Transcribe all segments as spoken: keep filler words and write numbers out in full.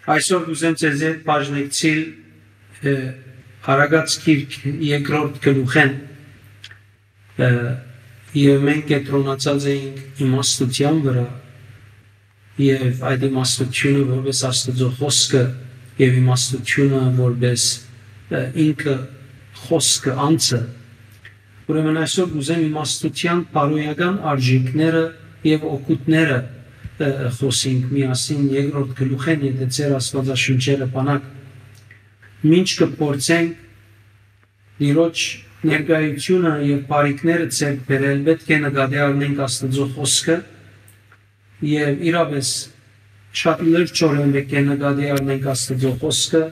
Այսօր կ'ուզեմ ձեզի հետ բաժնեկցիլ, ը, Արագած գիրք երկրորդ գլուխէն, ը, եւ մենք կեդրոնացած էինք իմաստութեան վրայ, եւ այդ իմաստութիւնը որպես Աստուծոյ խօսքը, եւ իմաստութիւնը որպես, ը, ինքը խօսքը, անձը։ Ուրեմն այսօր կ'ուզեմ իմաստութեան բարոյական արժեքները եւ օգուտները, ը, ը, խօսենք միասին երկրորդ գլուխէն, եթե ձեր Աստուածաշունչերը բանակ։ Մինչ կը փորձենք Տիրոջ ներկայութիւնը եւ բարիքները ձեռք բերել, պէտք է նկատի առնենք Աստուծոյ խօսքը, եւ իրապէս շատ լրջորեն պէտք է նկատի առնենք Աստուծոյ խօսքը,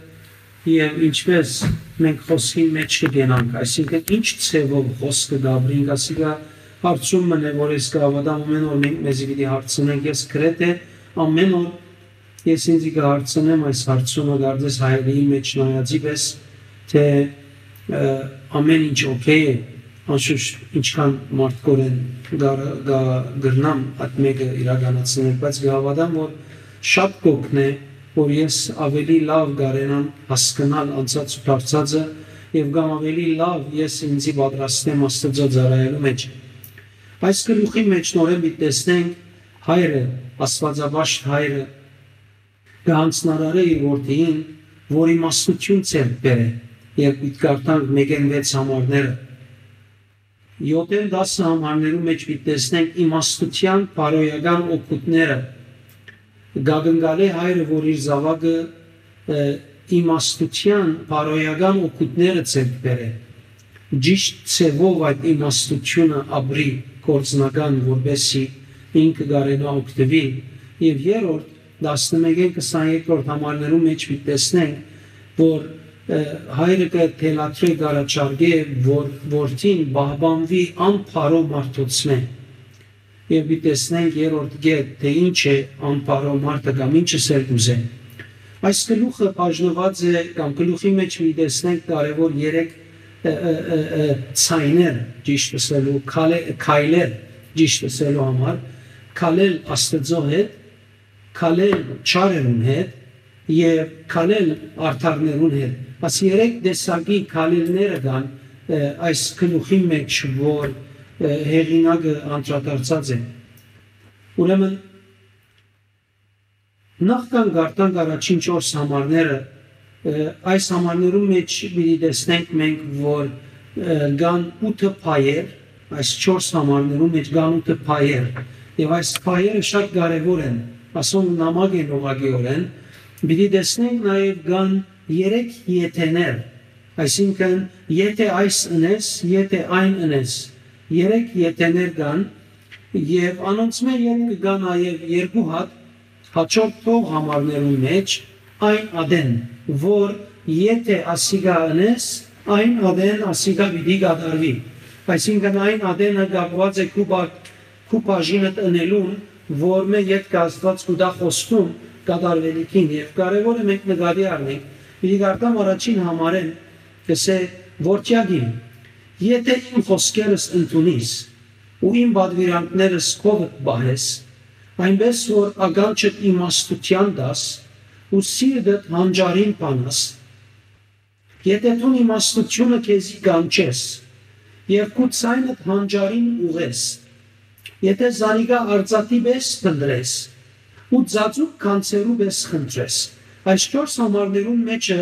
եւ ինչպես մենք խօսքին մէջ կ'ընկնանք, այսինքն ինչ ձեւով խօսքը կ'ապրենք, ասիկա հարցում մըն է, որ ես կը հաւատամ, ամէն օր մենք մեզի պիտի հարցնենք, ես գրեթէ ամէն օր ես ինծի կը հարցնեմ այս հարցումը, կարծես հայերին մէջ նայածի պէս, թէ, ը, ամէն ինչ օքէյ է, անշուշտ ինչքան մարդկորեն գար-, գա-, կրնամ այդ մէկը իրականացնել, բայց կը հաւատամ, որ շատ կ'օգնէ, որ ես ավելի լաւ կարենամ հասկնալ անցած ու դարձածը, եւ կամ ավելի լաւ ես ինծի պատրաստեմ Աստուծոյ ծառայելու մէջ։ Այս գլուխի մէջ նորէն պիտի տեսնենք հայրը, Աստուածապաշտ հայրը, կը յանձնարարէ իր որդիին, որ իմաստութիւն ձեռք բերէ, եւ պիտի կարդանք մէկէն վեց համարները։ Եօթէն տասը համարներու մէջ պիտի տեսնենք իմաստութեան բարոյական օգուտները։ Կ'ակնկալէ հայրը, որ իր զաւակը, ը, իմաստութեան բարոյական օգուտները ձեռք բերէ, ճիշտ ձեւով այդ իմաստութիւնը ապրի գործնական, որպեսզի ինքը կարենայ օգտուիլ։ Եւ երրորդ, տասնմէկէն քսաներկրորդ համարներու մէջ պիտի տեսնենք, որ, ը, հայրը կը թելադրէ, կ'առաջարկէ, որ որդին պահպանուի անբարոյ մարդոցմէ։ Եւ պիտի տեսնենք երրորդ կետ, թէ ինչ է անբարոյ մարդը կամ ինչը սեր կ'ուզէ։ Այս գլուխը բաժնուած է, կամ գլուխի մէջ պիտի տեսնենք կարեւոր երեք, ը, ը, ը, ը, ձայներ, ճիշտ ըսելու, քալե-, քայլեր, ճիշտ ըսելու համար, քալել Աստուծոյ հետ, քալել չարերուն հետ եւ քալել արդարներուն հետ։ Այս երեք տեսակի քալելները կան, ը, այս գլուխի մէջ, որ, ը, հեղինակը անդրադարձած է։ Ուրեմն, նախքան կարդանք առաջին չորս համարները, ը, այս համարներուն մէջ պիտի տեսնենք մենք, որ, ը, կան ութը փայեր, այս չորս համարներուն մէջ կան ութը փայեր, եւ այս փայերը շատ կարեւոր են, ասոնք նամակ են ուղղակիօրէն, պիտի տեսնենք նաեւ կան երեք եթեներ, այսինքն, եթէ այս ընես, եթէ այն ընես, երեք եթեներ կան, եւ անոնցմէ ետք կը գա նաեւ երկու հատ, հաջորդ թող համարներուն մէջ, այն ատեն, որ եթէ ասիկա ընես, այն ատեն ասիկա պիտի կատարուի։ Այսինքն, այն ատենը կապուած է քու բա-, քու բաժինդ ընելուն, որ մէ ետքը Աստուած կու տայ խոստում կատարուելիքին, եւ կարեւոր է մենք նկատի առնենք։ Պիտի կարդամ առաջին համարէն, կ'ըսէ. «Որդեակ իմ, եթէ իմ խօսքերս ընդունիս ու իմ պատվիրանքներս քովդ պահես, այնպէս որ ականջդ իմաստութեան տաս ու սիրտդ հանճարին բանաս, եթէ դուն իմաստութիւնը քեզի կանչես եւ քու ձայնդ հանճարին ուղղես, եթէ զանիկա արծաթի պէս փնտռես ու ծածուկ գանձերու պէս խնդրես»։ Այս չորս համարներուն մէջը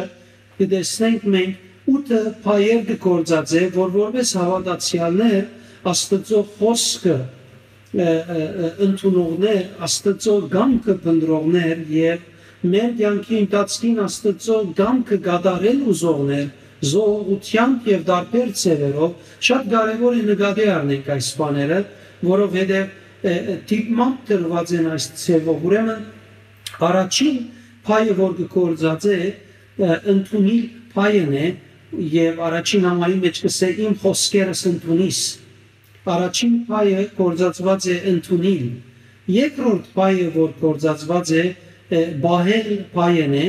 կը տեսնենք մենք ութը փայեր կը գործածէ, որ որպես հաւատացեալներ Աստուծոյ խօսքը, ը, ը, ը, ընդունողներ, Աստուծոյ կամքը փնտռողներ եւ մեր կեանքի ընթացքին Աստուծոյ կամքը կատարել ուզողներ, զոհողութեամբ եւ տարբեր ձեւերով, շատ կարեւոր է նկատի առնենք այս բաները, որովհետեւ, ը, ը, դիտմամբ տրուած են այս ձեւով։ Ուրեմն, առաջին փայը, որ կը գործածէ, ը, ընդունիլ փայն է, եւ առաջին համարի մէջ կ'ըսէ. «Իմ խօսքերս ընդունիս»։ Առաջին փայը գործածուած է ընդունիլ։ Երկրորդ փայը, որ գործածուած է, ը, պահել փայն է,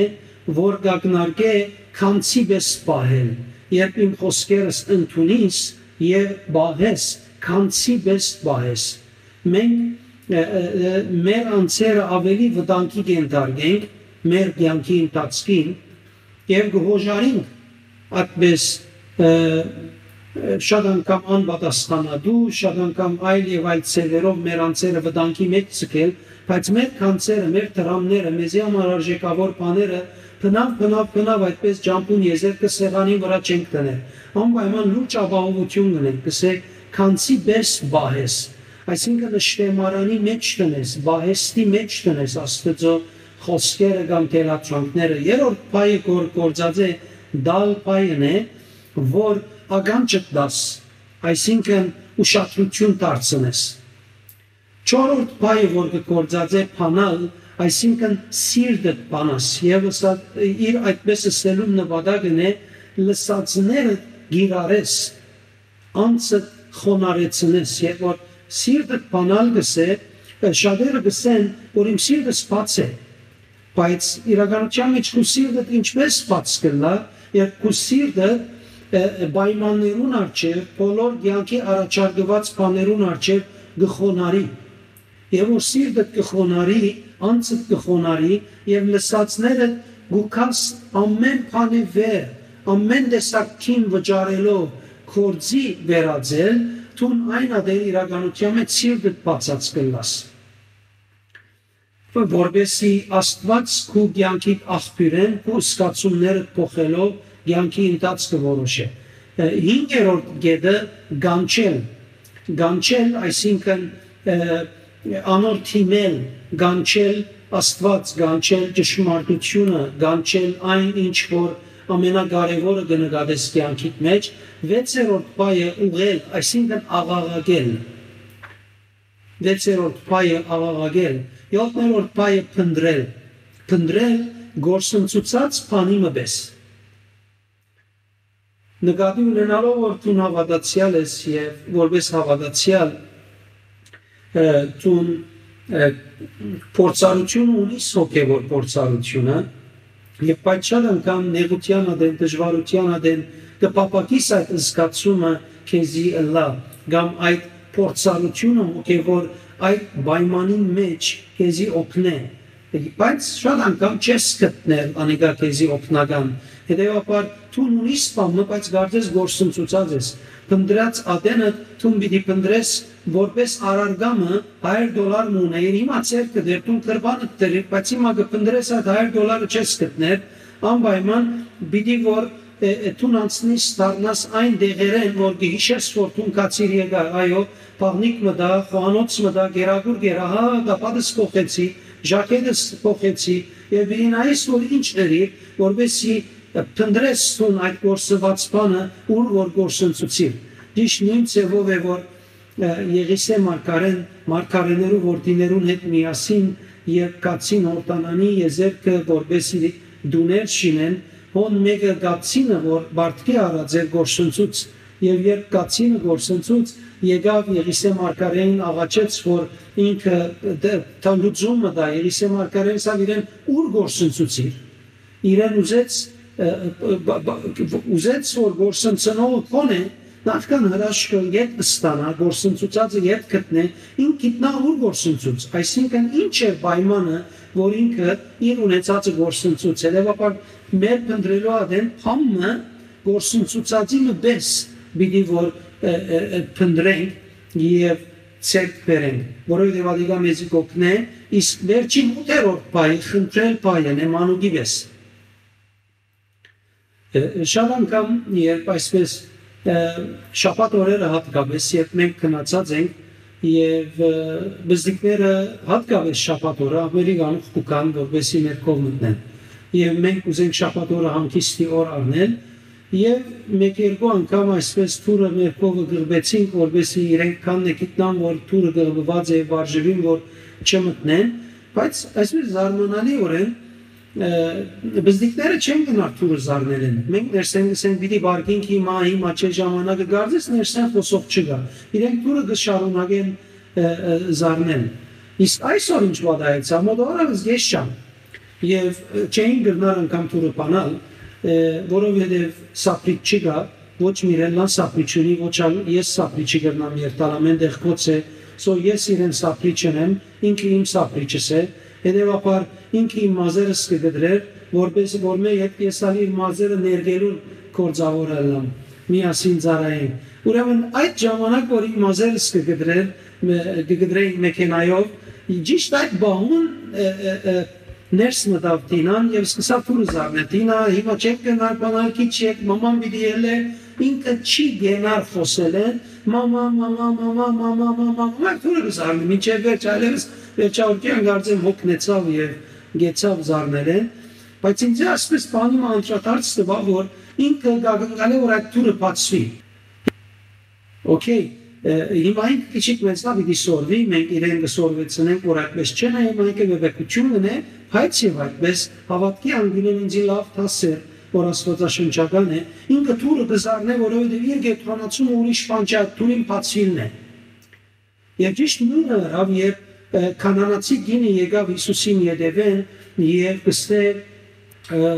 որ կ'ակնարկէ գանձի պէս պահել, երբ իմ խօսքերս ընդունիս եւ պահես, գանձի պէս պահես։ Մենք, ը, ը, ը, մեր անձերը ավելի վտանգի կ'ենթարկենք, մեր կեանքի ընթացքին եւ կը յօժարինք այդպես, ը, ը, շատ անգամ անպատասխանատու, շատ անգամ այլ եւ այլ ձեւերով մեր անձերը վտանգի մէջ ձգել, բայց մեր գանձերը, մեր դրամները, մեզի համար արժեքաւոր բաները բնաւ, բնաւ, բնաւ այդպես ճամբուն եզերքը սեղանին վրայ չենք դնել։ Անպայման լուրջ ապահովութիւն կ'ունենք, կ'ըսէ, գանձի պէս պահես, այսինքն՝ շտեմարանի մէջ դնես, պահեստի մէջ դնես Աստուծոյ խօսքերը կամ թելադրանքները։ Երրորդ պահը, որ գործած է, տալ պահն է, որ ականջդ տաս, այսինքն՝ ուշադրութիւն դարձնես։ Չորրորդ պահը, որ կը գործած է, բանալ, այսինքն՝ սիրտդ բանաս, եւ ըսա-, իր այդպես ըսելուն նպատակն է լսածները կիրառես, անձը խոնարհեցնես, եւ որ սիրտդ բանալ կ'ըսէ, ը, շատերը կ'ըսեն, որ իմ սիրտս բաց է, բայց իրականության մեջ քու սիրտդ ինչպես բաց կ'ըլլայ, երբ քու սիրտը, ը, ը, պայմաններուն առջեւ, բոլոր կեանքի առաջարկուած բաներուն առջեւ կը խոնարհի, եւ որ սիրտդ կը խոնարհի, անձդ կը խոնարհի, եւ լսածներդ կու գաս ամէն բանի վեր, ամէն տեսակ կին վճարելով, գործի վերածել, դուն այն ատեն իրականության մեջ սիրտդ բացած կ'ըլլաս, որպեսզի Աստուած քու կեանքիդ աղբիւրէն, քու զգացումներդ փոխելով, կեանքի ընթացքը որոշէ։ Ը, հինգերորդ կետը՝ կանչել։ Կանչել, այսինքն, ը, անոր դիմել, կանչել Աստուած, կանչել ճշմարտութիւնը, կանչել այն, ինչ որ ամենակարեւորը կը նկատես կեանքիդ մեջ։ Վեցերորդ պահը՝ ուղղել, այսինքն՝ աղաղակել։ Վեցերորդ պահը՝ աղաղակել։ Եօթներորդ պահը՝ փնտռել։ Փնտռել՝ գործընծուցած բանի մը պէս։ Նկատի ունենալով, որ դուն հաւատացեալ ես եւ որպէս հաւատացեալ, ը, դուն, ը, փորձառութիւնը ունիս, հոգեւոր փորձառութիւնը, եւ բայց շատ անգամ նեղութեան ատեն, դժուարութեան ատեն կը փափաքիս այդ զգացումը քեզի ըլլայ, կամ այդ փորձառութիւնը հոգեւոր այդ պայմանին մեջ քեզի օգնէ, բայց շատ անգամ չես գտներ անիկա քեզի օգնական։ Հետեւաբար դուն ունիս բան մը, բայց կարծես գործընծուցած ես։ Փնտռած ատենը դուն պիտի փնտռես որպէս առարկա մը, հարիւր դոլար մը ունէիր, հիմա ձեռքդ էր, դուն գրպանդ դրիր, բայց հիմա կը փնտռես, այդ հարիւր դոլարը չես գտներ, անպայման պիտի որ, ը, ը, դուն անցնիս, դառնաս այն տեղերէն, որ կը յիշես, որ դուն գացիր եկայ, այո, բաղնիք մտայ, խոհանոց մտայ, կերակուր կերայ, հա, կապատս փոխեցի, ժակետս փոխեցի, եւ պիտի նայես, որ ինչ ըրիր, որպեսզի, ը, փնտռես դուն այդ գործուած բանը, ուր որ գործընծուցիր։ Ճիշդ նոյն ձեւով է, որ, ը, Եղիսէ մարգարէն, մարգարէներու որդիներուն հետ միասին, երբ գացին Յորդանանի եզերքը, որպեսզի տուներ շինեն, հոն մէկը գացինը, որ պարտքի առած էր, գործընծուց, եւ երբ գացինը գործընծուց, եկաւ Եղիսէ մարգարէին աղաչեց, որ ինքը դ-, տա լուծում մը տայ, Եղիսէ մարգարէն ըսաւ իրեն, ուր գործընծուցիր։ Իրեն ուզեց, ը, ը, բա-, բա-, ուզեց, որ գործընծնողը քոնէ նախքան հրաշքը ետ ստանայ, գործընծուցածը ետ գտնէ, ինք գիտնայ ուր գործընծուց, այսինքն՝ ինչ է պայմանը, որ ինքը իր ունեցածը գործընծուց։ Հետեւաբար մեր փնտռելու ատեն բան մը, գործընծուցածի մը պէս պիտի որ, ը, ը, ը, փնտռենք եւ ձեռք բերենք, որովհետեւ ատիկա մեզի կօգնէ, իսկ վերջին ութերորդ պահը՝ խնդրել պահն է, մանուկի պէս։ Ը, շատ անգամ, երբ այսպես, ը, շաբաթ օրերը հատկապես, երբ մենք գնացած ենք եւ, ը, բզդիկները հատկապես շաբաթ օրը աղմերի գանուխ կու գան, որպեսզի մեր քով մտնեն։ Եւ մենք ուզենք շաբաթ օրը հանգիստի օր առնել, եւ մեկ-երկու անգամ այսպես թուրը մեր քովը գղբեցինք, որպեսզի իրենք քան է գիտնան, որ թուրը գղբուած է, վարժուին, որ չմտնեն, բայց այսպես զարմանալիորեն, ը, բզդիկները չեն գնար թուրը զարնելեն։ Մենք ներսեն գսենք, պիտի վարկենք հիմա, հիմա չէ ժամանակը, կարծես ներսեն խօսող չկայ։ Իրենք թուրը կը շարունակեն, ը, ը, զարնել։ Իսկ այսօր ինչ պատահեցաւ, մոտավորապես ես չեմ։ Եւ, ը, չէին կրնար անգամ թուրը բանալ, ը, որովհետեւ սապրիչ չկայ, ոչ Միրելլան սապրիչ ունի, ոչ ալ ես սապրիչի կրնամ երթալ, ամեն տեղ գոց է, so ես իրեն սապրիչն եմ, ինքը իմ սապրիչս է, Հետեւաբար ինքը իմ մազերս կը կտրէր, որպէս որ մէ հետ ես ալ իր մազերը ներկելուն գործաւոր ըլլամ, միասին ծառայենք։ Ուրեմն այդ ժամանակ որ իմ մազերս կը կտրէր, մէ-, կը կտրեին մեքենայով, ճիշտ այդ պահուն, ը, ը, ը, ներս մտաւ Տինան եւ սկսաւ թուրը զարնել։ «Տինա, հիմա չենք կրնար բանալ, քիչ յետ մաման պիտի ելլէ», ինքը չի կենար խօսելէն, «մամա, մամա, մամա, մամա, մամա», մամա, թուրը կը զարնէ, մինչեւ վերջ, այլեւս վերջավորքեան կարծեմ հոգնեցաւ եւ գեցաւ զարնելէն, բայց ինձ այսպես բանի մը անդրադարձ տուաւ, որ ինքը կակնկալէ, որ այդ թուրը բացուի։ Okay, ը, հիմա ինքը քիչիկ մեզնա պիտի սորվի, մենք իրեն կը սորվեցնենք, որ այդպես չեն, հիմա ինքը վեվեկութիւն կ'ընէ, բայց եւ այդպես հաւատքի անգինէն ինձի լաւ դաս էր, որ աստուածաշնչական է, ինքը թուրը կը զարնէ, որովհետեւ իր կեդրոնացումը ուրիշ բան չէ, այդ թուրին բացուիլն է։ Եւ ճիշտ նոյնը ըրաւ, երբ, ը, քանանացի կինը եկաւ Յիսուսին ետեւէն եւ կ'ըսէ, ը,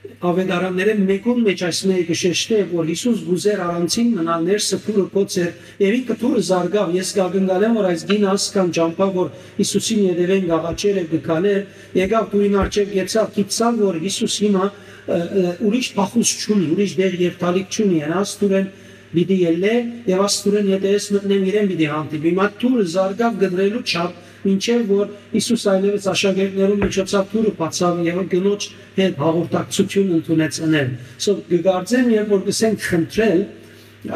աւետարաններէն մէկուն մէջ այս մէկը կը շեշտէ, որ Յիսուս կ'ուզէր առանձին մնալ, ներսը թուրը կոց էր, եւ ինքը թուրը զարգաւ։ Ես կակնկալեմ, որ այս կինը ասկան ճամբայ, որ Յիսուսին ետեւէն կ'աղաչէր եւ կը քալէր, եկաւ թուրին առջեւ, գեցաւ, գիտցաւ, որ Յիսուս հիմա, ը, ը, ուրիշ փախուստ չունի, ուրիշ դեր երթալիք չունի, հենա աստուրեն պիտի ելլէ եւ աստուրեն ետեւէս մտնեմ իրեն պիտի հանդիպի։ Հիմա թուրը զարգաւ կտրելու չափ, մինչեւ որ Յիսուս այլեւս աշակերտներուն միջոցաւ թուրը բացաւ եւ կնոջ հետ հաղորդակցություն ընդունեց ընել։ So, կկարծեմ, երբ որ կսենք խնդրել,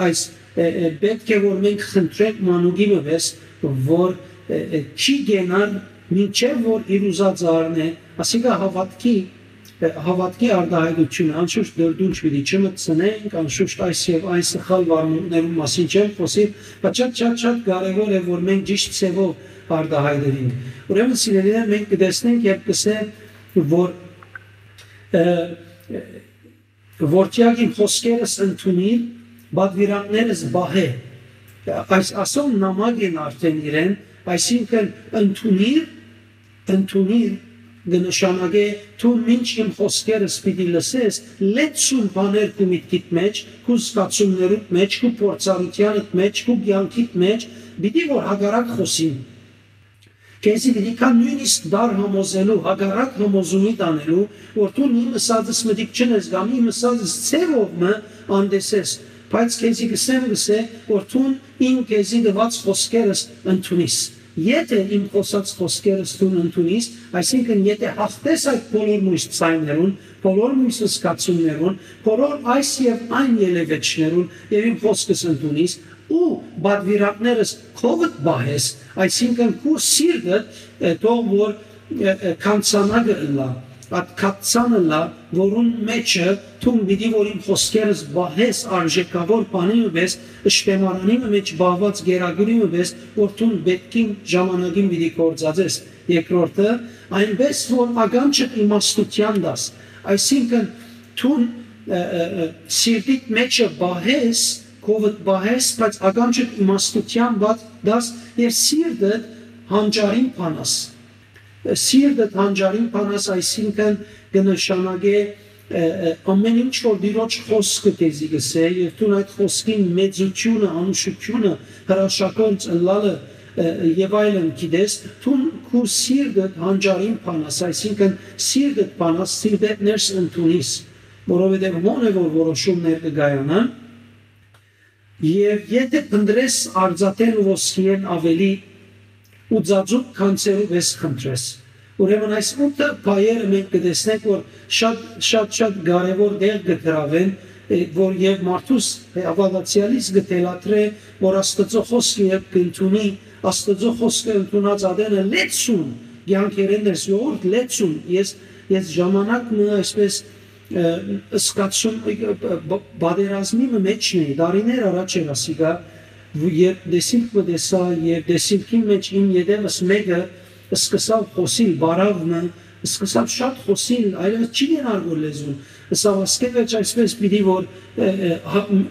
այս, ը, ը, պէտք է որ մենք խնդրենք մանուկի մը պէս, որ, ը, ը, չի կենար, մինչեւ որ իր ուզածը առնէ, ասիկա հաւատքի, ը, հաւատքի արտահայտությունը, անշուշտ դրդունջ պիտի չմտցնենք, անշուշտ այս եւ այն սխալ վարմունքներուն մասին չեմ խօսիր, բայց շատ, շատ, շատ կարեւոր է, որ մենք ճիշտ ձեւով արտահայտենք։ Ուրեմն, սիրելիներ, մենք կտեսնենք, երբ կսե, որ, ը, ը, «Որդեակ իմ խօսքերս ընդունիր, պատուիրանքներս պահէ»։ Այս ասոն նամակ են արդեն իրեն, այսինքն ընդունիր, ընդունիր կը նշանակէ, դու մինչ իմ խօսքերս պիտի լսես, լեցուն բաներ քու միտքիդ մեջ, քու զգացումներուդ մեջ, քու փորձառութեանդ մեջ, քու կեանքիդ մեջ, պիտի որ հակառակ խօսին։ Քեզի պիտի գայ նոյնիսկ դար համոզելու, հակառակ համոզումի տանելու, որ դուն իմ ըսածս մտիկ չընես կամ իմ ըսածս ձևով մը անտեսես, բայց քեզի կսեմ, կսե, որ դուն իմ քեզի տուած խօսքերս ընդունիս։ Եթէ իմ խօսած խօսքերս դուն ընդունիս, այսինքն եթէ հաղթես այդ բոլոր մոյս ձայներուն, բոլոր մոյս զգացումներուն, բոլոր այս եւ այն ելեւէջներուն եւ իմ խօսքս ընդունիս, ու պատուիրանքներս քովդ պահես, այսինքն քու սիրտդ, ը, թող որ, ը, ը, քանցանակը ըլլա, այդ քացանը ըլլա, որուն մեջը դուն պիտի որ իմ խօսքերս պահես արժեքաւոր բանի մը պէս, ըշտեմարանի մը մեջ պահուած գերագուրի մը պէս, որ դուն պէտքին ժամանակին պիտի գործածես։ Երկրորդը, այնպես որ ականջդ իմաստութեան տաս, այսինքն դուն, ը, ը, ը, սիրտիդ մեջը պահես, քովդ պահես, բայց ականջդ իմաստութեան բաց դաս եւ սիրտդ հանճարին բանաս։ Սիրտդ հանճարին բանաս, այսինքն կը նշանակէ, ը, ը, ամեն ինչ որ Տիրոջ խօսքը քեզի կսէ, եւ դուն այդ խօսքին մեծութիւնը, անուշութիւնը, հրաշագործ ըլլալը, ը, եւ այլն գիտես, դուն քու սիրտդ հանճարին բանաս, այսինքն սիրտդ բանաս, սիրտդ ներս ընդունիս, որովհետեւ հոն է որ որոշումներ կը կայանան, եւ եթէ փնտրես արծաթէն ու ոսկիէն աւելի ու ծածուկ գանձերու պէս խնդրես։ Ուրեմն այս ութը բաները մենք կտեսնենք, որ շատ, շատ, շատ կարեւոր տեղ կը գրաւեն, ը, որ եւ մարդուս, ը, հաւատացեալիս կը թելադրէ, որ Աստուծոյ խօսքը երբ կ'ընդունի, Աստուծոյ խօսքը ընդունած ատենը լեցուն, կեանքերէն ներս յորդ լեցուն, ես, ես ժամանակ մը այսպես, ը, զգացում, ը, ը, ը, պատերազմի մը մեջն էի, տարիներ առաջ էր ասիկա, երբ դեսիլք մը տեսայ, եւ դեսիլքին մեջ իմ ետեւս մէկը սկսաւ խօսիլ, բարաւ մը, սկսաւ շատ խօսիլ, այլեւս չի կենար որ լեզուն, ըսաւ, ասկէ վերջ այսպես պիտի որ, ը, ը, հա, մ,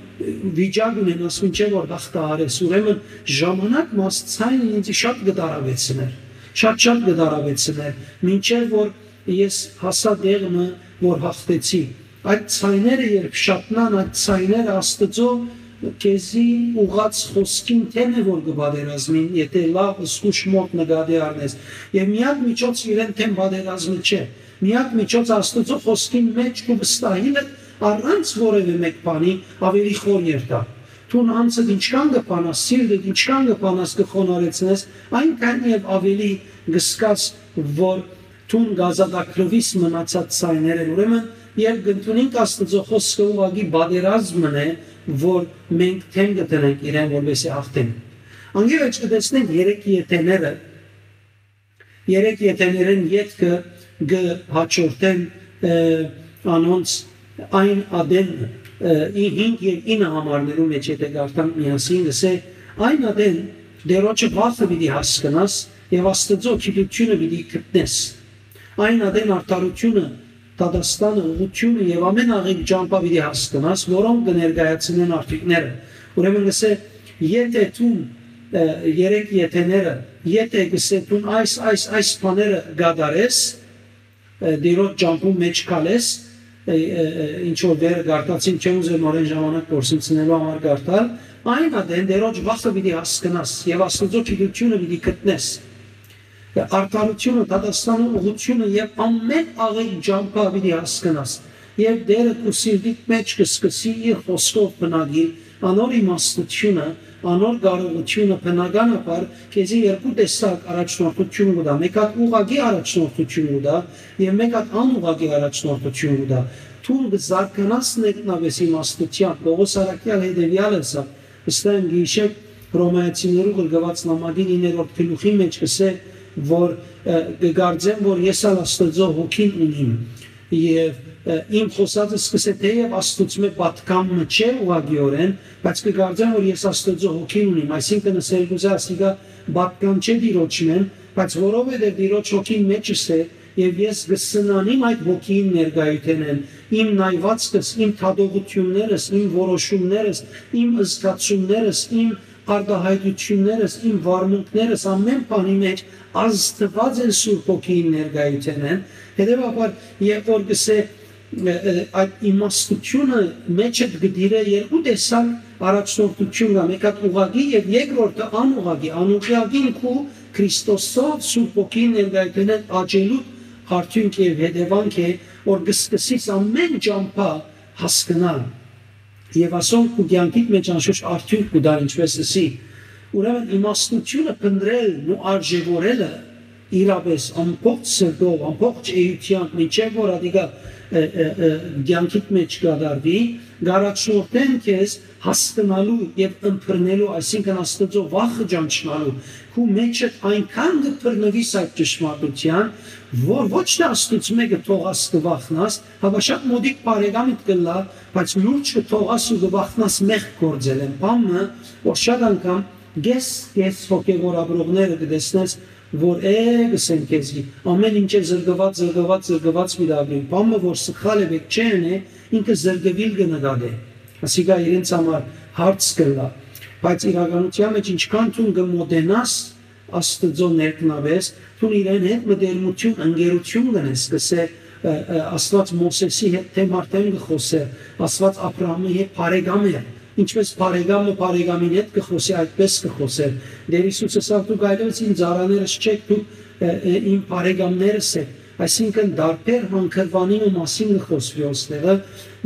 վիճակ ունենաս, մինչեւ որ հաղթահարես, ուրեմն ժամանակ մը այս ձայնը ինձ շատ կը տարավեցնէր, շատ, շատ կը տարավեցնէր, մինչեւ որ ես հասա տեղ մը, որ հաղթեցի։ Այդ ձայները երբ շատնան, այդ ձայները Աստուծոյ, քեզի ուղղած խօսքին դէմ է որ կը պատերազմին, եթէ լաւ զգուշ մօտ նկատի առնես։ Եւ միակ միջոցը իրեն դէմ պատերազմը չէ։ Միակ միջոցը Աստուծոյ խօսքին մէջ կու վստահիլը առանց որեւէ մէկ բանի ավելի խոր երթայ։ Դուն անձդ ինչքան կը փանաս, սիրտդ ինչքան կը փանաս, կը խոնարհեցնես, այնքան եւ ավելի կը զգաս, որ դուն կ'ազատագրուիս մնացած ձայներէն։ Ուրեմն, երբ կ'ընդունինք Աստուծոյ խօսքը, ուղղակի պատերազմն է, որ մենք դէմ կը դնենք իրեն, որպեսզի հաղթենք։ Անկէ վեր կը տեսնենք երեք եթեները, երեք եթեներէն ետքը կը հաջորդեն, ը, անոնց այն ատեն, ը, ի-, հինգ եւ ինը համարներու մէջ, եթէ կարդանք միասին, կ'ըսէ. «Այն ատեն Տէրոջը վախը պիտի հասկնաս եւ Աստուծոյ գիտութիւնը պիտի գտնես։ Այն ատեն արդարութիւնը, դատաստանը, ուղղութիւնը եւ ամէն աղիք ճամբայ պիտի հասկնաս, որոնք կը ներկայացնեն արդիւնքները»։ Ուրեմն կ'ըսէ, եթէ դուն, ը, երեք եթեները, եթէ կ'ըսէ դուն այս, այս, այս բաները կատարես, ը, Տէրոջ ճամբուն մէջ քալես, ը, ը, ը, ինչ որ վերը կարդացին, չեմ ուզեր նորէն ժամանակ կորսնցնելու համար կարդալ, այն ատեն Տէրոջ վախը պիտի հասկնաս եւ Աստուծոյ գիտութիւնը պիտի գտնես։ Արդարութիւնը, դատաստանը, ուղղութիւնը եւ ամէն աղէկ ճամբայ պիտի հասկնաս։ Եւ Տէրը քու սիրտիդ մէջ կը սկսի իր խօսքով բնակիլ, անոր իմաստութիւնը, անոր կարողութիւնը բնականաբար քեզի երկու տեսակ առաջնորդութիւն կու տայ։ Մէկ հատ ուղղակի առաջնորդութիւն կու տայ եւ մէկ հատ անուղղակի առաջնորդութիւն կու տայ։ Դուն կը զարգանաս ներքնապէս իմաստութեան, Պողոս առաքեալ հետեւեալ ըսաւ, վստահ եմ կը յիշէք, Հռոմայացիներու ղրկուած նամակին իններորդ գլուխի մէջ կ'ըսէ, որ, ը, կը կարծեմ, որ ես ալ Աստուծոյ հոգին ունիմ, եւ, ը, իմ խօսածս կ'ըսէ, թէեւ Աստուծմէ պատգամը չէ ուղղակիօրէն, բայց կը կարծեմ, որ ես Աստուծոյ հոգին ունիմ, այսինքն, ըսել կ'ուզէ, ասիկա պատգամ չէ Տիրոջմէն, բայց որովհետեւ Տիրոջ հոգին մէջս է, եւ ես կը սնանիմ այդ հոգիին ներկայութենէն, իմ նայուածքս, իմ դատողութիւններս, իմ որոշումներս, իմ զգացումներս, իմ արտայայտութիւններս, իմ վարմունքներս, ամէն բանի մէջ ազդուած են Սուրբ Հոգիին ներկայութենէն։ Հետեւաբար, երբ որ կ'ըսէ, ը, ը, այդ իմաստութիւնը մէջդ կը տիրէ երկու տեսակ առաջնորդութիւն կայ, մէկ հատ ուղղակի եւ երկրորդը անուղղակի, անուղղակին քու Քրիստոսով Սուրբ Հոգին ներկայութենէն աճելու արդիւնք եւ հետեւանք է, որ կը սկսես ամէն ճամբայ հասկնալ։ Եւ ասոնք քու կեանքիդ մէջ անշուշտ արդիւնք կու տան, ինչպէս ըսի։ Ուրեմն իմաստութիւնը փնտռելն ու արժեւորելը իրապէս ամբողջ սրտով, ամբողջ էութեամբ, մինչեւ որ ատիկա, ը, ը, ը, կեանքիդ մէջ կատարուի, կ'առաջնորդեն քեզ հասկնալու եւ ըմբռնելու, այսինքն Աստուծոյ վախը ճանչնալու, քու մէջդ այնքան կը բռնուիս այդ ճշմարտութեան, որ ոչ թէ Աստուծմէ կը թողաս, կը վախնաս, հապա շատ մօտիկ բարեկամդ կ'ըլլայ, բայց լուրջ կը թողաս ու կը վախնաս մեղք գործելէն։ Բան մը, որ շատ անգամ կես, կես հոգեւոր ապրողները կը տեսնես, որ է, կ'ըսեն քեզի, ամէն ինչ է զրկուած, զրկուած, զրկուած պիտի ապրին։ Բան մը, որ սխալ է, պէտք չէ ընէ, ինքը զրկուիլ կը նկատէ։ Ասիկա իրենց համար հարց կ'ըլլայ, բայց իրականութեան մէջ ինչքան դուն կը մոտենաս Աստուծոյ ներքնապէս, դուն իրեն հետ մտերմութիւն, ընկերութիւն կ'ընես, կ'ըսէ, ը, ը, Աստուած Մովսէսի հետ դէմ առ դէմ կը խօսէ, Աստուած Աբրահամի հետ բարեկամ է, ինչպէս բարեկամը բարեկամին հետ կը խօսի, այդպէս կը խօսէ։ Տէր Յիսուս ըսաւ. «Դուք այլեւս իմ ծառաներս չէք, դուք, ը, ը, իմ բարեկամներս եք»։ Այսինքն, տարբեր հանգրուանի մը մասին կը խօսուի ոստեղը,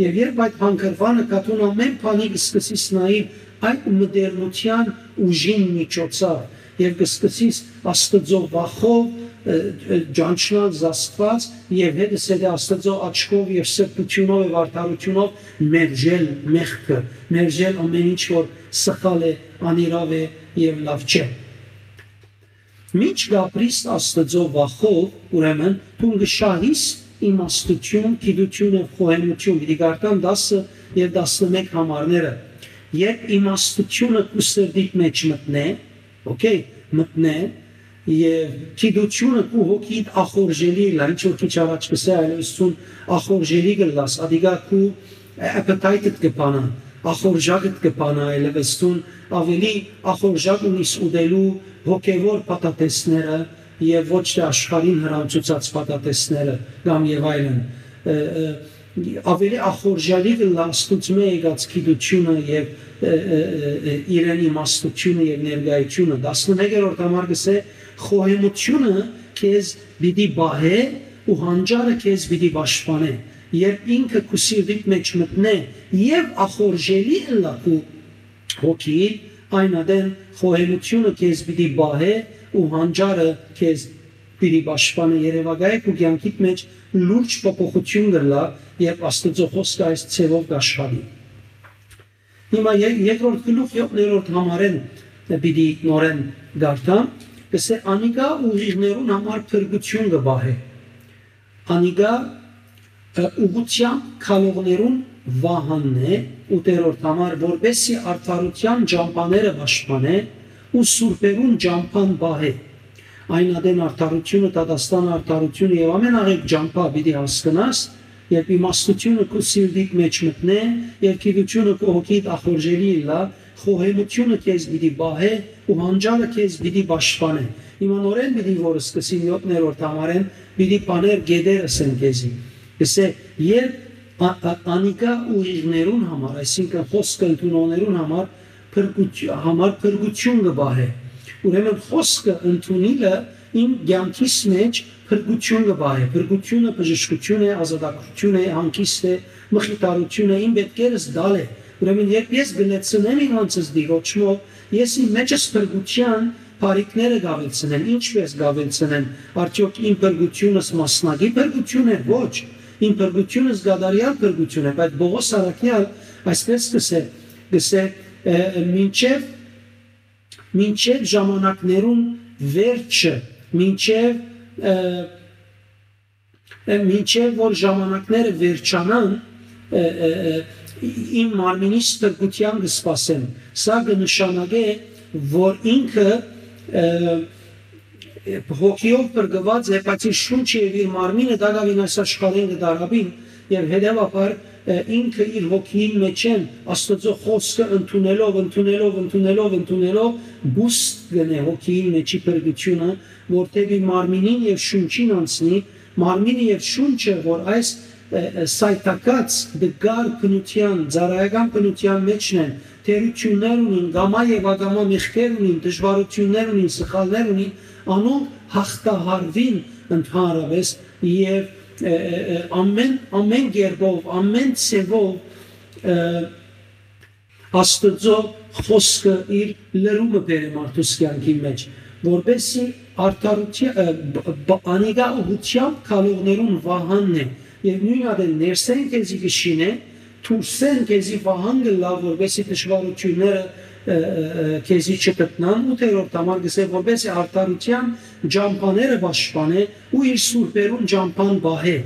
եւ երբ այդ հանգրուանը կա, դուն ամէն բանի կը սկսես նայել այդ մտերմութեան ուժին միջոցով, եւ կը սկսես Աստուծոյ վախով, ը, ը, ճանչնալ զաստուած, եւ հետս հետը Աստուծոյ աչքով եւ սրբութիւնով եւ արդարութիւնով մերժել մեղքը, մերժել ամէն ինչ, որ սխալ է, անիրաւ է եւ լաւ չէ։ Մինչ կ'ապրիս Աստուծոյ վախով, ուրեմն, դուն կը շահիս իմաստութիւն, գիտութիւն եւ խոհեմութիւն, պիտի կարդամ տասը եւ տասնմէկ համարները, երբ իմաստութիւնը քու սրտիդ մէջ մտնէ, օքեյ, մտնէ, եւ գիտութիւնը քու հոգիդ ախորժելի ըլլայ, ինչ որ քիչ առաջ կ'ըսէի, այլեւս դուն ախորժելի կ'ըլլաս, ատիկա քու appetite-դ կը բանայ, ախորժակդ կը բանայ, այլեւս դուն ավելի ախորժակ ունիս ուտելու հոգեւոր փաթաթէսները եւ ոչ թէ աշխարհին հրամցուցած փաթաթէսները կամ եւ այլն։ Ը, ը, ավելի ախորժալի կ'ըլլայ Աստուծմէ եկած գիտութիւնը եւ ը, ը, ը, ը, իրեն իմաստութիւնը եւ ներկայութիւնը։ Տասնմեկերորդ համար կ'ըսէ. «Խոհեմութիւնը քեզ պիտի պահէ ու հանճարը քեզ պիտի պաշտպանէ։ Երբ ինքը քու սիրտիդ մէջ մտնէ եւ ախորժելի ըլլայ քու հոգիին, այն ատեն խոհեմութիւնը քեզ պիտի պահէ ու հանճարը քեզ պիտի պաշտպանէ»։ Երեւակայ քու կեանքիդ մէջ լուրջ փոփոխութիւն կ'ըլլայ, երբ Աստուծոյ խօսքը այս ձեւով կ'աշխատի։ Հիմա ե-, երկրորդ գլուխ յոթերորդ համարէն պիտի նորէն կարդամ, կ'ըսէ. «Անիկա ուղիղներուն համար փրկութիւն կը պահէ»։ Անիկա, ը, ուղղութեամբ քալողներուն վահանն է, ութերորդ համար, որպեսզի արդարութեան ճամբաները պաշտպանէ ու սուրբերուն ճամբան պահէ։ Այն ատեն արդարութիւնը, դատաստանը, արդարութիւնը եւ ամեն աղէկ ճամբայ պիտի հասկնաս, երբ իմաստութիւնը քու սիրտիդ մէջ մտնէ, եւ գիտութիւնը քու հոգիդ ախորժելի ըլլայ, խոհեմութիւնը քեզ պիտի պահէ ու հանճարը քեզ պիտի պաշտպանէ։ Հիմա նորէն պիտի որ սկսին յոթերորդ համարէն, պիտի բաներ գետեր ըսեն քեզի։ Կ'ըսէ. «Երբ ա-, ա-, անիկա ուղիղներուն համար, այսինքն խօսքը ընդունողներուն համար, փրկութ-, համար փրկութիւն կը պահէ»։ Ուրեմն խօսքը ընդունիլը իմ կեանքիս մէջ փրկութիւն կը պահէ։ Փրկութիւնը բժշկութիւն է, ազատագրութիւն է, հանգիստ է, մխիթարութիւն է, իմ պետքերս տալ է։ Ուրեմն երբ ես կը լեցնեմ իմ անձս Տիրոջմով, ես իմ մէջս փրկութեան բարիքները կ'աւելցնեմ։ Ինչպէս կ'աւելցնեմ, արդեօք իմ փրկութիւնս մասնակի փրկութիւն է։ Ոչ, իմ փրկութիւնս կատարեալ փրկութիւն է, բայց Պողոս Առաքեալ այսպես կ'ըսէ, կ'ըսէ, ը, մինչեւ, մինչեւ ժամանակներուն վերջը, մինչեւ, ը, ը, մինչեւ որ ժամանակները վերջանան, ը, ը, ը, իմ մարմինիս փրկութեան կը սպասեմ։ Սա կը նշանակէ, որ ինքը, ը, հոգիով փրկուած է, բայց իր շունչը եւ իր մարմինը տակաւին այս աշխարհէն կը դարապին, եւ հետեւաբար, ը, ինքը իր հոգիին մէջէն Աստուծոյ խօսքը ընդունելով, ընդունելով, ընդունելով, ընդունելով, բուստ կ'ընէ հոգիին մէջի փրկութիւնը, որ դէպի մարմինին եւ շունչին անցնի, մարմինը եւ շունչը, որ այս, ը, ը, սայթաքած դգար բնութեան, ծառայական բնութեան մէջն են, թերութիւններ ունին, կամայ եւ ակամայ մեղքեր ունին, դժուարութիւններ ունին, սխալներ ունին, անոնք յաղթահարուին ընդհանրապէս եւ, ը, ը, ը, ամեն, ամեն կերպով, ամեն ձեւով, ը, Աստուծոյ խօսքը իր լրումը բերէ մարդուս կեանքին մէջ, որպեսզի արդարութի-, ը, բ-, բ-, անիկա ուղղութեամբ քալողներուն վահանն է, եւ նոյն ատեն ներսէն քեզի կը շինէ, դուրսէն քեզի վահան կ'ըլլայ, որպեսզի դժուարութիւնները, ը, ը, ը, քեզի չգտնան, ութերորդ համար կ'ըսէ, որպեսզի արդարութեան ճամբաները պաշտպանէ ու իր սուրբերուն ճամբան պահէ։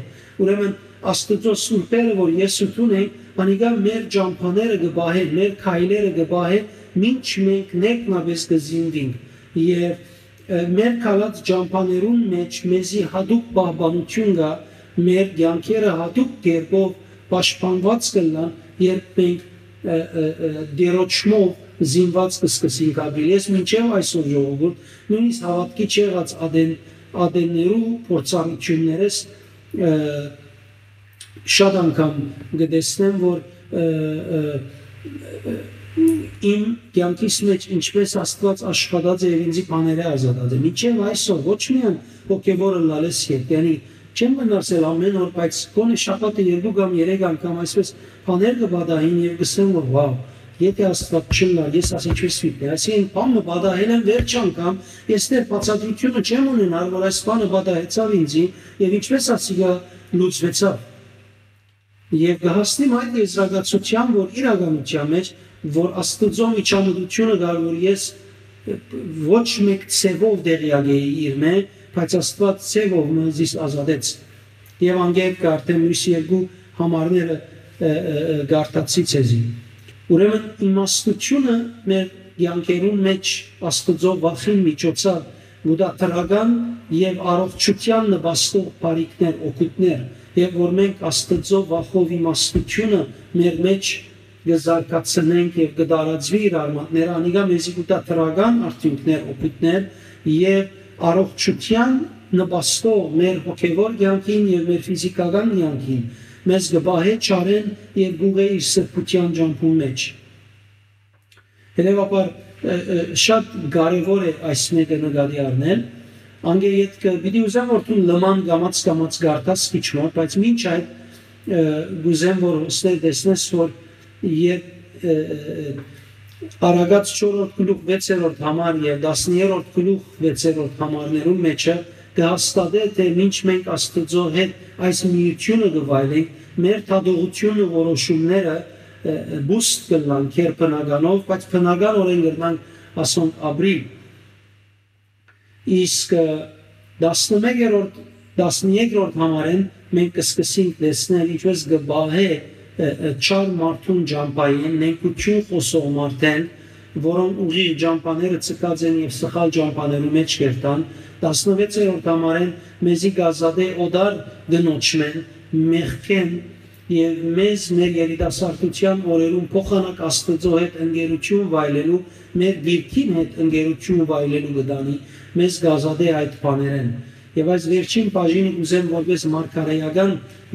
Ուրեմն Աստուծոյ սուրբերը, որ ես ու դուն ենք, անիկա մեր ճամբաները կը պահեն, մեր քայլերը կը պահեն, մինչ մենք ներքնապէս կը զինուինք։ Եւ, ը, մեր քալած ճամբաներուն մէջ մեզի յատուկ պահպանութիւն կայ, մեր կեանքերը յատուկ կերպով պաշտպանուած կ'ըլլան, երբ մենք, ը, ը, ը, Տիրոջմով զինուած կը սկսենք ապրիլ։ Ես մինչեւ այսօր, ժողովուրդ, նոյնիսկ հաւատքի չեղած ատեն-, ատեններու փորձառութիւններս, ը, շատ անգամ կը տեսնեմ, որ, ը, ը, ը, իմ կեանքիս մէջ ինչպէս Աստուած աշխատած է եւ ինձի բաները ազատած է։ Մինչեւ այսօր ոչ միայն հոգեւոր ըլլալէս երբ, յանի չեմ մնացել ամեն օր, բայց գոնե շաբաթը երկու կամ երեք անգամ այսպես բաներ կը պատահին եւ կ'ըսեմ, որ վաւ, եթե Աստուած չըլլար, ես աս ինչպես պիտի, այսինքն բան մը պատահել եմ վերջ անգամ, ես դեռ բացատրութիւնը չեմ ունենար, որ այս բանը պատահեցաւ ինձի եւ ինչպես ասիկա լուծվեցաւ։ Եւ կը հասնիմ այդ եզրակացութեան, որ իրականութեան մէջ, որ Աստուծոյ միջամտութիւնը կար, որ ես ոչ մէկ ձեւով տեղեակ էի իր մէ, բայց Աստուած ձեւով մը զիս ազատեց։ Եւ անգետ կը արդեն մյուս երկու համարները, ը, ը, ը, կարդացի ձեզի։ Ուրեմն իմաստութիւնը մեր կեանքերուն մէջ Աստուծոյ վախին միջոցաւ կու տայ դրական եւ առողջութեան նպաստող բարիքներ, օգուտներ, եւ որ մենք Աստուծոյ վախով իմաստութիւնը մեր մէջ կը զարգացնենք եւ կը տարածուի իր արմատները, անիկա մեզի կու տայ դրական արդիւնքներ, օգուտներ եւ առողջութեան նպաստող մեր հոգեւոր կեանքին եւ մեր ֆիզիքական կեանքին, մեզ կը պահէ չարէն եւ կ'ուղղէ իր սրբութեան ճամբուն մէջ։ Հետեւաբար, ը, ը, շատ կարեւոր է այս մէկը նկատի առնել։ Անկէ ետքը պիտի ուզեմ, որ դու լման կամաց-կամաց կարդաս քիչ մը, բայց մինչ այդ, ը, կ'ուզեմ, որ հոստեր տեսնես, որ երբ, ը, ը, ը, Արագած չորրորդ գլուխ վեցերորդ համար եւ տասներորդ գլուխ վեցերորդ համարներուն մէջը կը հաստատէ, թէ մինչ մենք Աստուծոյ հետ այս միութիւնը կը վայելենք, մեր դատողութիւնը, որոշումները, ը, ը, բուստ կ'ըլլան քերբնականով, բայց բնականօրէն կրնանք ասոնք ապրիլ։ Իսկ, ը, տասնմեկերորդ, տասներկրորդ համարէն մենք կը սկսենք տեսնել, ինչպես կը պահէ, ը, ը, չար մարդուն ճամբային, նենգութիւն խօսող մարդէն, որոնք ուղիղ ճամբաները ձգած են եւ սխալ ճամբաներու մէջ կերտան, տասնվեցերորդ համարէն մեզի կ'ազատէ օտար կնոջմէն, մեղքէն, եւ մեզ մեր երիտասարդութեան օրերուն փոխանակ Աստուծոյ հետ ընկերութիւն վայելելու, մեր դիրքին հետ ընկերութիւն վայելելու կը տանի, մեզ կ'ազատէ այդ բաներէն։ Եւ այս վերջին բաժինը կ'ուզեմ որպես մարգարեական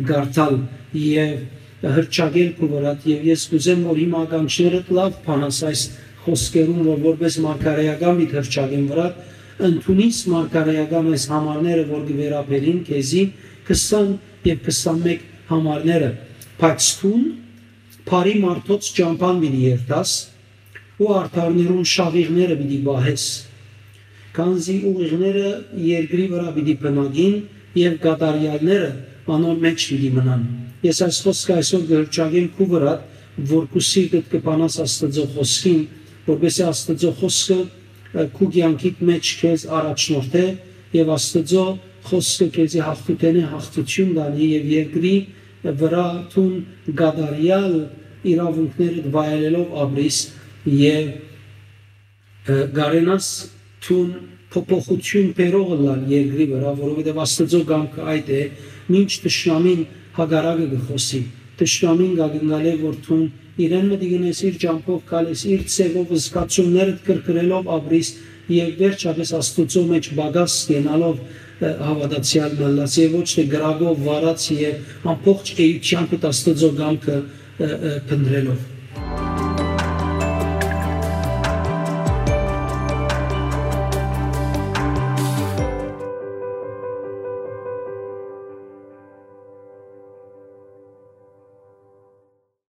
կարդալ եւ հրճակել քու վրադ, եւ ես կ'ուզեմ, որ հիմա ականջներդ լաւ բանաս այս խօսքերուն, որ որպես մարգարեական պիտի հրճակեմ վրադ, ընդունիս մարգարեական այս համարները, որ կը վերաբերին քեզի, քսան եւ քսանմէկ համարները, բայց դուն բարի մարդոց ճամբան պիտի երթաս ու արդարներուն շաղիղները պիտի պահես, քանզի ուղիղները երկրի վրայ պիտի բնակին եւ կատարեալները անոր մէջ պիտի մնան։ Ես այս խօսքը այսօր կը հրճակեմ քու վրադ, որ քու սիրտդ կը բանաս Աստուծոյ խօսքին, որպեսզի Աստուծոյ խօսքը, ը, քու կեանքիդ մէջ քեզ առաջնորդէ եւ Աստուծոյ խօսքը քեզի յաղթութենէ յաղթութիւն տանի եւ երկրի վրայ դուն կատարեալ իրաւունքներդ վայելելով ապրիս եւ, ը, կարենաս դուն փոփոխութիւն բերող ըլլալ երկրի վրայ, որովհետեւ Աստուծոյ կամքը այդ է, մինչ թշնամին հակառակը կը խօսի։ Թշնամին կ'ակնկալէ, որ դուն իրեն մտի գնես, իր ճամբով քալես, իր ձեւով զգացումներդ կրկնելով ապրիս եւ վերջապէս Աստուծոյ մէջ պակաս կենալով, ը, հաւատացեալ մնաս եւ ոչ թէ կրակով վարած եւ ամբողջ էութեանդ Աստուծոյ կամքը, ը, ը, փնտռելով։